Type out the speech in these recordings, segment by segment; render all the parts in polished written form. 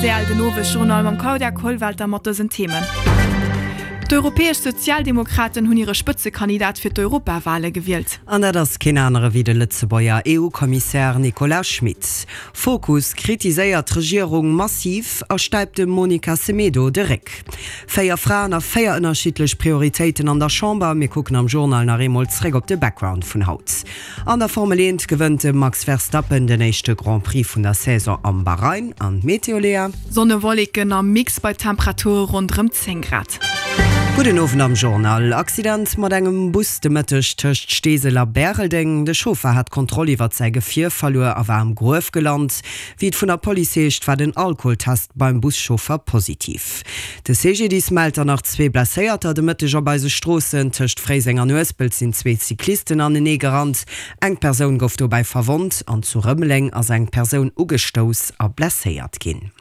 Rtl, Den Owesjournal mam Claudia Kollwelter mat dësen Themen. D'Europäesch Sozialdemokraten hunn hire Spëtzekandidat fir d'Europawale gewielt. An dat ass keen anere wéi de Lëtzebuerger EU-Kommissär Nicolas Schmit. Fokus kritiséiert d'Regierung massiv a stäipt dem Monica Semedo de Réck. 4 Fraen a 4 ënnerschiddlech Prioritéiten an der Chamber. Mir kucken am Journal nach eemol zréck op de Background vun haut. An der Formel 1 gewënnt de Max Verstappen den éischte Grand Prix vun der Saison am Bahrain. An d'Meteo, Léa? Sonne-Wolleken am Mix bei Temperature ronderëm 10 Grad. Gudden Owend am Journal. Accident mat engem Bus de Mëtteg tëscht Steesel a Bäreldeng. De Chauffer hat d'Kontroll iwwert säi Gefier verluer a war am Gruef gelant. Wéi et vun der Police heescht, war den Alkoholtest beim Buschauffer positiv. De CGDIS mellt dann nach zwee Blesséierter de Mëtteg op eise Stroossen. Tëscht Fréiseng an Uespelt sinn zwee Cyclisten anenee gerannt. Eng Persoun gouf dobäi verwonnt an zu Rëmeleng ass eng Persoun ugestouss a blesséiert ginn.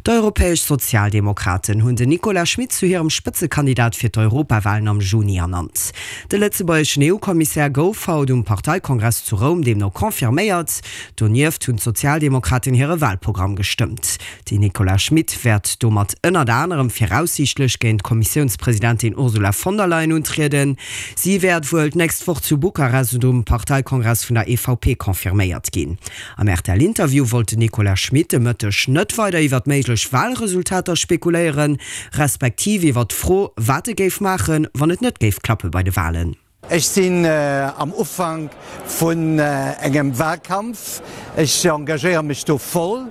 D'Europäesch Sozialdemokraten hunn den Nicolas Schmit zu hirem Spëtzekandidat fir d'Europawalen am Juni ernannt. De lëtzebuergeschen EU-Kommissär gouf haut um Parteikongress zu Roum deemno confirméiert. Donieft hunn d'Sozialdemokraten hire Walprogramm gestëmmt. Den Nicolas Schmit wäert domat ënnert anerem viraussiichtlech géint d'Kommissiounspresidentin Ursula von der Leyen untrieden. Si wäert wuel d'nächst Woch zu Bukarest um Parteikongress vun der EVP confirméiert ginn. Am RTL-Interview wollt den Nicolas Schmit de Mëtteg net weider iwwer méiglech Walresultater spekuléieren, respektiv iwwer d'Fro, wat e géif maachen, wann et net géif klappe bei de Walen. Ech sinn am Ufank vun engem Wahlkampf. Ech engagéiere mech do voll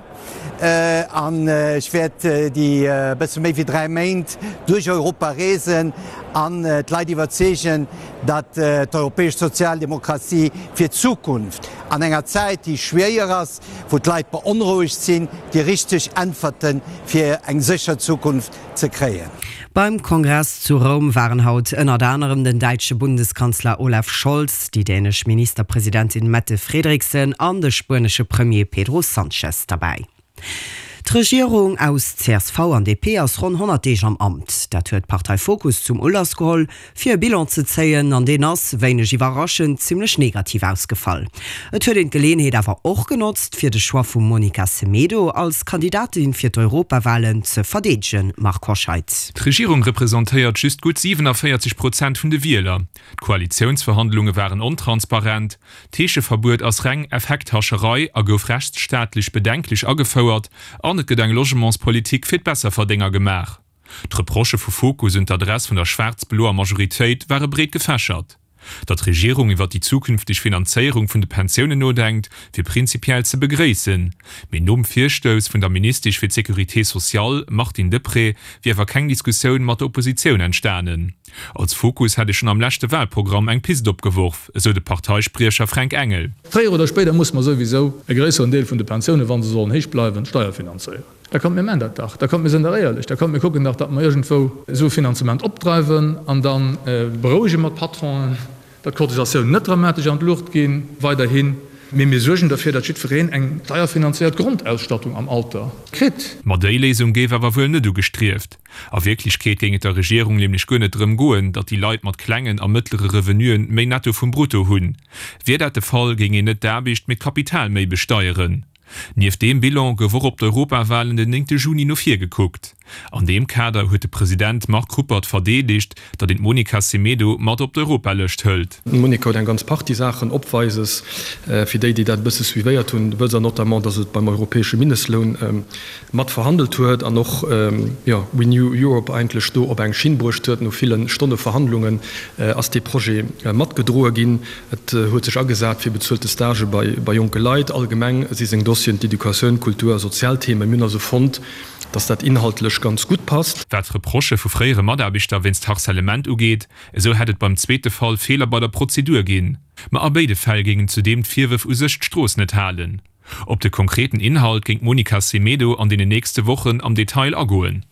an ech wäert déi bësse méi wéi 3 Méint duerch Europa reesen an d'Leit iwwerzeegen, datt d'europäesch Sozialdemokratie fir d'Zukunft, an enger Zäit déi schwéier ass, wou d'Leit beonrouegt sinn, déi richteg Äntwerte fir eng sécher Zukunft ze kréien. Beim Kongress zu Roum waren haut ënnert anerem den däitsche Bundeskanzler Olaf Scholz, déi dänesch Ministerpresidentin Mette Frederiksen an de spuenesche Premier Pedro Sanchez derbäi. D'Regierung aus csv an DP ass ronn 100 Deeg am Amt. Dat huet d'Partei Fokus zum Ulass geholl, fir e Bilan ze zéien. An deen ass, wéineg iwwerraschend, zimmlech negativ ausgefall. Et huet een d'Geleeënheet awer och genotzt, fir de Choix vum Monica Semedo als Kandidatin fir d'Europawalen ze verdeedegen, Marc Hoscheid. D'Regierung representéiert just gutt 47 Prozent vun de Wieler. D'Koalitiounsverhandlunge waren ontransparent, D'Heescheverbuet ass reng Effekthascherei a gouf rechtsstaatlech bedenklech agefouert an et gëtt eng Logementspolitik fir d'Besserverdénger gemaach. D'Reprochë vu Fokus un d'Adress vun der schwaarz-bloer Majoritéit ware breet gefächert. Datt d'Regierung iwwer déi zukünfteg Finanzéierung vun de Pensiounen nodenkt, wier prinzipiell ze begréissen. Mee nom Virstouss vun der Ministesch fir d'Sécurité sociale, Martine Deprez, wier awer keng Diskussioun mat der Oppositioun entstanen. Als Fokus hätt ee schonn am leschte Walprogramm eng Pist opgeworf, esou de Parteispriecher Fränk Engel. Fréier oder spéider musse mer souwisou e gréisseren Deel vun de Pensiounen, wa se sollen héich bleiwen, steierfinanzéieren. Da kommt, mir man dat dach. Da kommt, mir sinn dach éierlech. Da kommt, mir kucken dach, datt mer iergendwou esou e Finanzement opdreiwen an da berouege mer d'Patronen. Datt d'Cotisatiounen net dramatesch an d'Luucht gi weiderhin, mee mir suergen derfir, datt jiddwereen eng steierfinanzéiert Grondausstattung am Alter kritt. Ma déi Léisung géif awer wuel net ugestrieft. A Wierklechkeet géing et der Regierung nämlech guer net drëm goen, datt déi Leit mat klengen a mëttlere Revenuen méi Netto vum Brutto hunn. Wier dat de Fall, géing een net d'Aarbecht, mee d'Kapital méi besteieren. Nieft deem Bilan gouf och op d'Europawalen den néngte Juni no vir gekuckt. An deem Kader huet de President Marc Ruppert verdeedegt, datt een d'Monica Semedo mat op d'Europalëscht hëlt. D'Monica huet eng ganz Partie Saachen opweises. Fir déi, déi dat e bësse suivéiert hunn, wësst Der notamment, datt et beim europäesche Mindestloun mat verhandelt huet an och, jo, Renew Europe eigentlech do op eng Schinn bruecht huet. No ville Stonne Verhandlungen ass dee Projet matgedroe ginn. Et huet sech agesat fir bezuelte Stagë bei jonke Leit. Allgemeng si seng Dossieren d'Educatioun, Kultur a sozial Themen. Mir hunn also fonnt, dass dat inhaltlech ganz gutt passt. Wat d'Reprochë vu fréiere Mataarbechter wéinst Harcèlement ugeet, esou hätt et beim zweete Fall Feeler bei der Prozedur ginn. Ma a béide Fäll géingen zudeem d'Virwërf u sech d'Strooss net halen. Op de konkreten Inhalt géing d'Monica Semedo an deenen nächste Wochen am Detail agoen.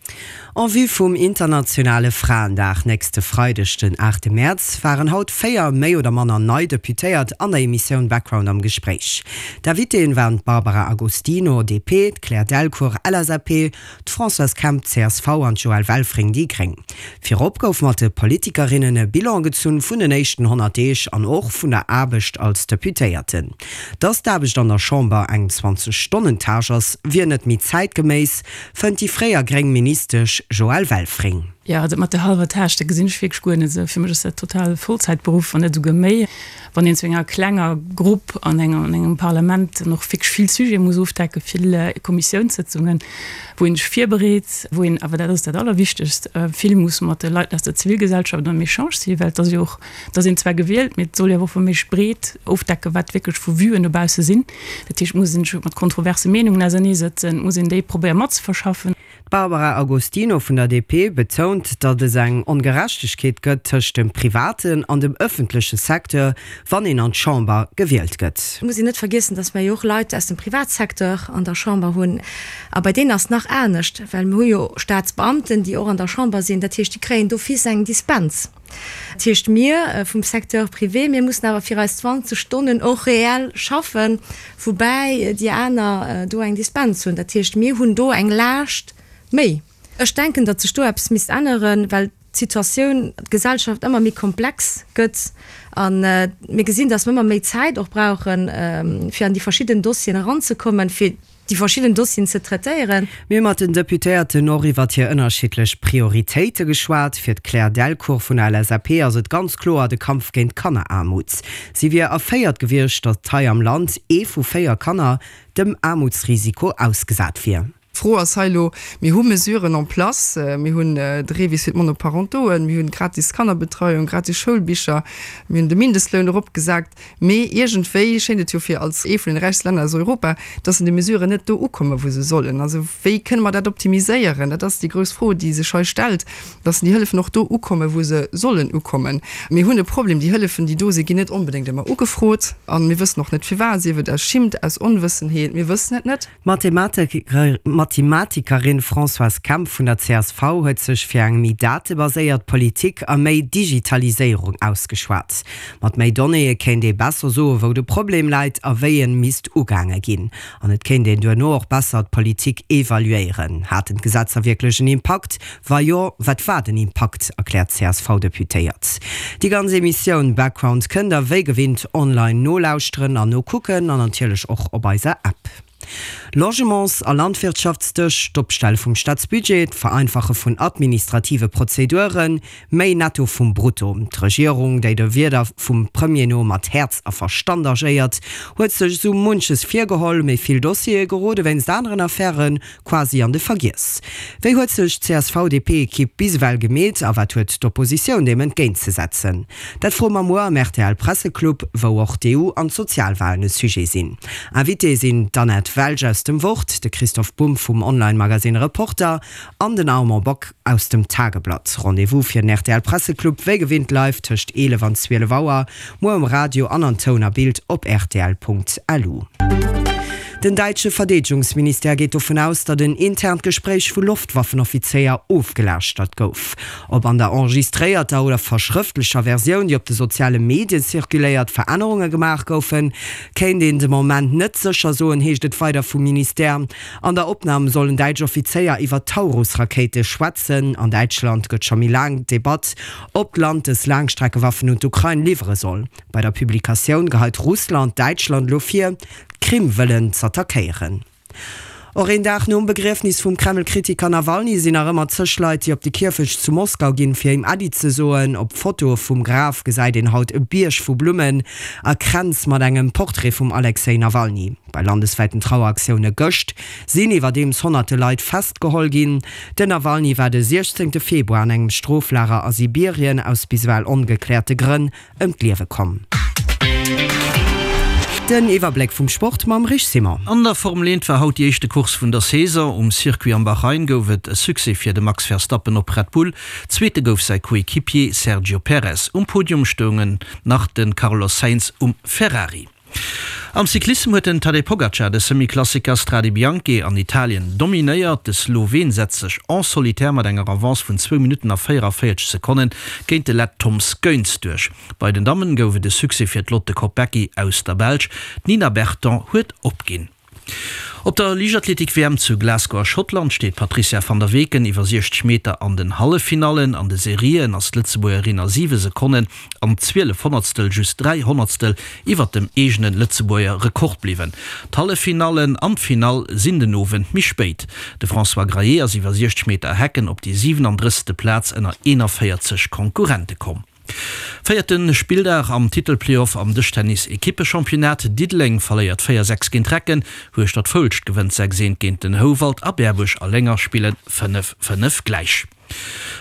En vue vum internationale Fraendag nächste Freideg, den 8 Mäerz, waren haut 4 méi oder manner nei Deputéiert an der Emissioun Background am Gespréich. D'Invitéen waren d'Barbara Agostino, DP, d'Claire Delcourt, LSAP, d'Françoise Kemp, csv, an d'Joëlle Welfring, déi gréng. Virop gouf mat de Politikerinnen e Bilan gezunn vun den éischten 100 Deeg an och vun der Aarbecht als Deputéierten. Dass d'Aarbecht an der Chamber eng 20 Stonnen Tâche ass, wier net méi zäitgeméiss, fënnt déi fréier gréng Ministesch Joëlle Welfring. Jo, dat mat der hallwer Tâche, dat gesinn ech wierklech guer net esou. Fir mech ass dat total e Vollzäitberuff, wann net esouguer méi. Wann een zu enger klenger Grupp an engem Parlament dann och wierklech vill Sujete muss ofdecken, vill Kommissiounssëtzungen, wou een sech virbereet, wou een awer, dat ass dat Allerwichtegst, vill muss mat de Leit aus der Zivilgesellschaft am Echange sinn, well et ass jo och, et ass een zwar gewielt, mee et soll jo awer och wa méiglech breet ofdecken, wat wierklech vu Vuen dobausse sinn. Dat heescht, et muss een sech mat kontroverse Meenungen auserneesëtzen, et muss een déi probéiere matzeverschaffen. D'Barbara Agostino vun der DP betount, datt es eng Ongerechtegkeet gëtt tëscht dem privaten an dem ëffentleche Secteur, wann een an d'Chamber gewielt gëtt. Et muss een net vergiessen, datt mer jo och Leit aus dem Privatsecteur an der Chamber hunn. A bei deenen ass et nach anescht, well mir hu jo Staatsbeamten, déi och an der Chamber sinn. Dat heescht, déi kréien d'office eng Dispens. Dat heescht, mir vum Secteur privé, mir mussen awer fir eis 20 Stonnen och reell schaffen, woubäi déi aner do eng Dispens hunn. Dat heescht, mir hunn do eng Laascht méi. Ech denken, datt sech do eppes misst änneren, well d'Situatioun, d'Gesellschaft ëmmer méi komplex gëtt a mir gesinn, datt mir ëmmer méi Zäit och brauchen, fir an déi verschidden Dossieren eranzekommen, fir déi verschidden Dossieren ze traitéieren. Mir hu mat den Deputéierten och iwwert hir ënnerschiddlech Prioritéite geschwat. Fir d'Claire Delcourt vun der LSAP ass et ganz kloer de Kampf géint d'Kanneraarmut. Si wier erféiert gewiescht, datt hei am Land ee vu 4 Kanner dem Aarmutsrisiko ausgesat wier. D'Fro ass hei elo, Mir hu Mesuren en place, mir hunn de REVIS fir d'Monoparentoen, mir hunn gratis Kannerbetreiung, gratis Schoulbicher, mir hunn de Mindestloun eropgesat. Mee iergendwéi schéint et jo fir als ee vun den räichste Länner aus Europa, dass en déi Mesuren net do ukommen, wou se sollen. Also wéi kënne mer dat optimiséieren? Dat ass déi grouss Fro, déi sech hei stellt, dass déi Hëllefen och do ukommen, wou se sollen ukommen. Mir hunn e Problem, déi Hëllefen, déi do sinn, ginn net onbedéngt ëmmer ugefrot. A mir wëssen och net firwat, sief et aus Schimmt, aus Onwëssenheet, mir wëssen et net. D'Mathematikerin Françoise Kemp vun der csv huet sech fir eng méi datebaséiert Politik a méi Digitaliséierung ausgeschwat. Mat méi Donnéeë kéint ee besser soe wou de Problem läit a wéi en misst ugaange ginn. An et kéint een duerno och besser d'Politik evaluéieren. Haten d'Gesetzer wierklech en Impakt? Wa jo, wat war den Impakt? erkläert d'CSV-Deputéiert. Déi ganz Emissioun Background kënnt der wéi gewinnt online nolauschteren an nokucken an natierlech och op eiser App. Logements a Landwirtschaftsdësch, d'Opstelle vum Staatsbudget, d'Vereinfache vun administrative Prozeduren, méi Netto vum Brutto. D'Regierung, déi de Wierder vum Premier no mat Häerz a Verstand agéiert, huet sech esou munches virgeholl, mee vill Dossiere gerode wéinst aneren Affäre Quasi an de Vergiess. Wéi huet sech d'CSV-DP-Ekipp bis ewell gemeet a wat huet d'Oppositioun deem entgéintzesetzen? Dat froe mer muer am RTL-Presseclub, wou och d'EU an d'Sozialwalen e Sujet sinn. Invitée sinn d'Annette Welsch aus dem Wort, de Christoph Bumb vum Online-Magasinn Reporter an den Armand Bock aus dem Tageblatt. Rendez-vous fir den RTL-Presseclub wéi gewinnt live tëscht 11 an 12 Auer Muer um Radio an an Toun a Bild op rtl.lu. Den däitsche Verdeedegungsministère geet dovun aus, datt en internt Gespréich vu Loftwaffenoffizéier ofgelauschtert gouf. Ob an der enregistréierter oder verschrëftlecher Versioun, déi op de soziale Medie zirkuléiert, Verännerunge gemaach goufen, kéint een de Moment net sécher soen, heescht et weider vum Ministère. An der Opnam sollen däitsch Offizéier iwwer Taurus-Rakéite schwätzen. An Däitschland gëtt scho méi laang d'Debatt, ob d'Land dës Laangstreckewaffen un d'Ukrain liwwere soll. Bei der Publikatioun geheit Russland Däitschland elo vir, d'Krim wëllen z'attackéieren. Och een Dag nom Begriefnis vum Kreml-Kritiker Nawalny sinn nach ëmmer zeg Leit, déi op de Kierfecht zu Moskau ginn, fir him Äddi ze soen. Op Fotoe vum Graf gesäit een haut e Bierg vu Blummen a Kränz mat engem Portrait vum Alexej Nawalny. Bei landeswäiten Traueraktioune gëscht sinn iwwerdeems honnerte Leit festgeholl ginn. Den Nawalny war de 16 Februar an engem Stroflager a Sibirien aus bis ewell ongekläerte Grënn ëm d'Liewe komm. Den Iwwerbléck vum Sport mam Rich Simon. An der Formel 1 war haut déi éischte Course vun der Saison. Um Circuit am Bahrain gouf et e Succès fir de Max Verstappen op Red Bull. Zweete gouf säi Coequipier Sergio Perez. Um Podium stoungen nach de Carlos Sainz um Ferrari. Am Cyclissem huet den Tadej Pogacar de Semi-Klassiker Strade Bianche an Italien dominéiert. De Sloween setzt sech en solitaire mat enger Avance vun zwou Minutten a 44 Sekonne géint de Lett Toms Goens duerch. Bei den Dammen gouf et e Succès fir d'Lotte Kopecky aus der Belsch. D'Nina Berton huet opginn. Op der Liichtathletik-WM zu Glasgow a Schottland steet d'Patrizia van der Weken iwwer 60 Meter an den Halleffinallen. An de Serien ass d'Lëtzebuergerin a 7 Sekonnen an 12 Honnertstel just 3 Honnertstel iwwer dem eegene Lëtzebuerger Rekord bliwwen. D'Halleffinallen an d'Finall sinn den Owend méi spéit. De François Graillet ass iwwer 60 Meter Hecken op déi 37. Plaz ënner 41 Konkurrente komm. Véierte Spilldag am Titelplayoff am Dëschtennis-Ekippechampionnat, Diddeleng verléiert 4, 6 géint Recken, Hueschtert-Foulscht gewënnt 6, 1 géint den Houwald a Berbuerg a Lénger spillen 5, 5 gläich.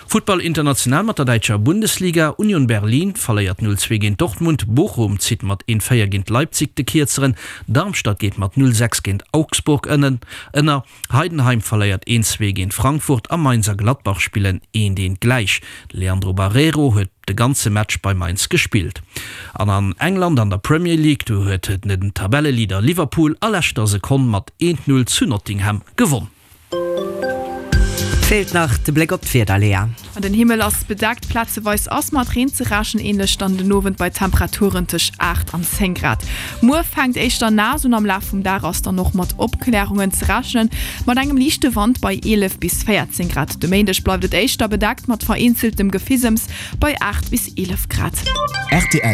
Futtball international mat der däitscher Bundesliga, Union Berlin verléiert 0, 2 géint Dortmund, Bochum zitt mat 1, 4 géint Leipzig de Kierzeren, Darmstadt geet mat 0, 6 géint Augsburg ënner. Heidenheim verléiert een 2 géint Frankfurt a Mainz a Gladbach spillen eent eent gläich. De Leandro Barreiro huet de ganze Match bei Mainz gespillt. An an England an der Premier League, do huet den Tabelleleader Liverpool a leschter Sekonn mat eent 0 zu Nottingham gewonn. Feelt nach de Bléck op d'Wieder, Léa. Den Himmel ass bedeckt, plazeweis ass mat Reen ze rechnen, änlech dann den Owend bei Temperaturen tëscht 8 an 10 Grad. Muer fänkt éischter naass un, am Laf vum Dag ass dann och mat Opklärungen ze rechnen, mat engem liichte Wand bei 11 bis 14 Grad. De Méindeg bleift et éischter bedeckt mat vereenzeltem Gefisems bei 8 bis 11 Grad. Rtl.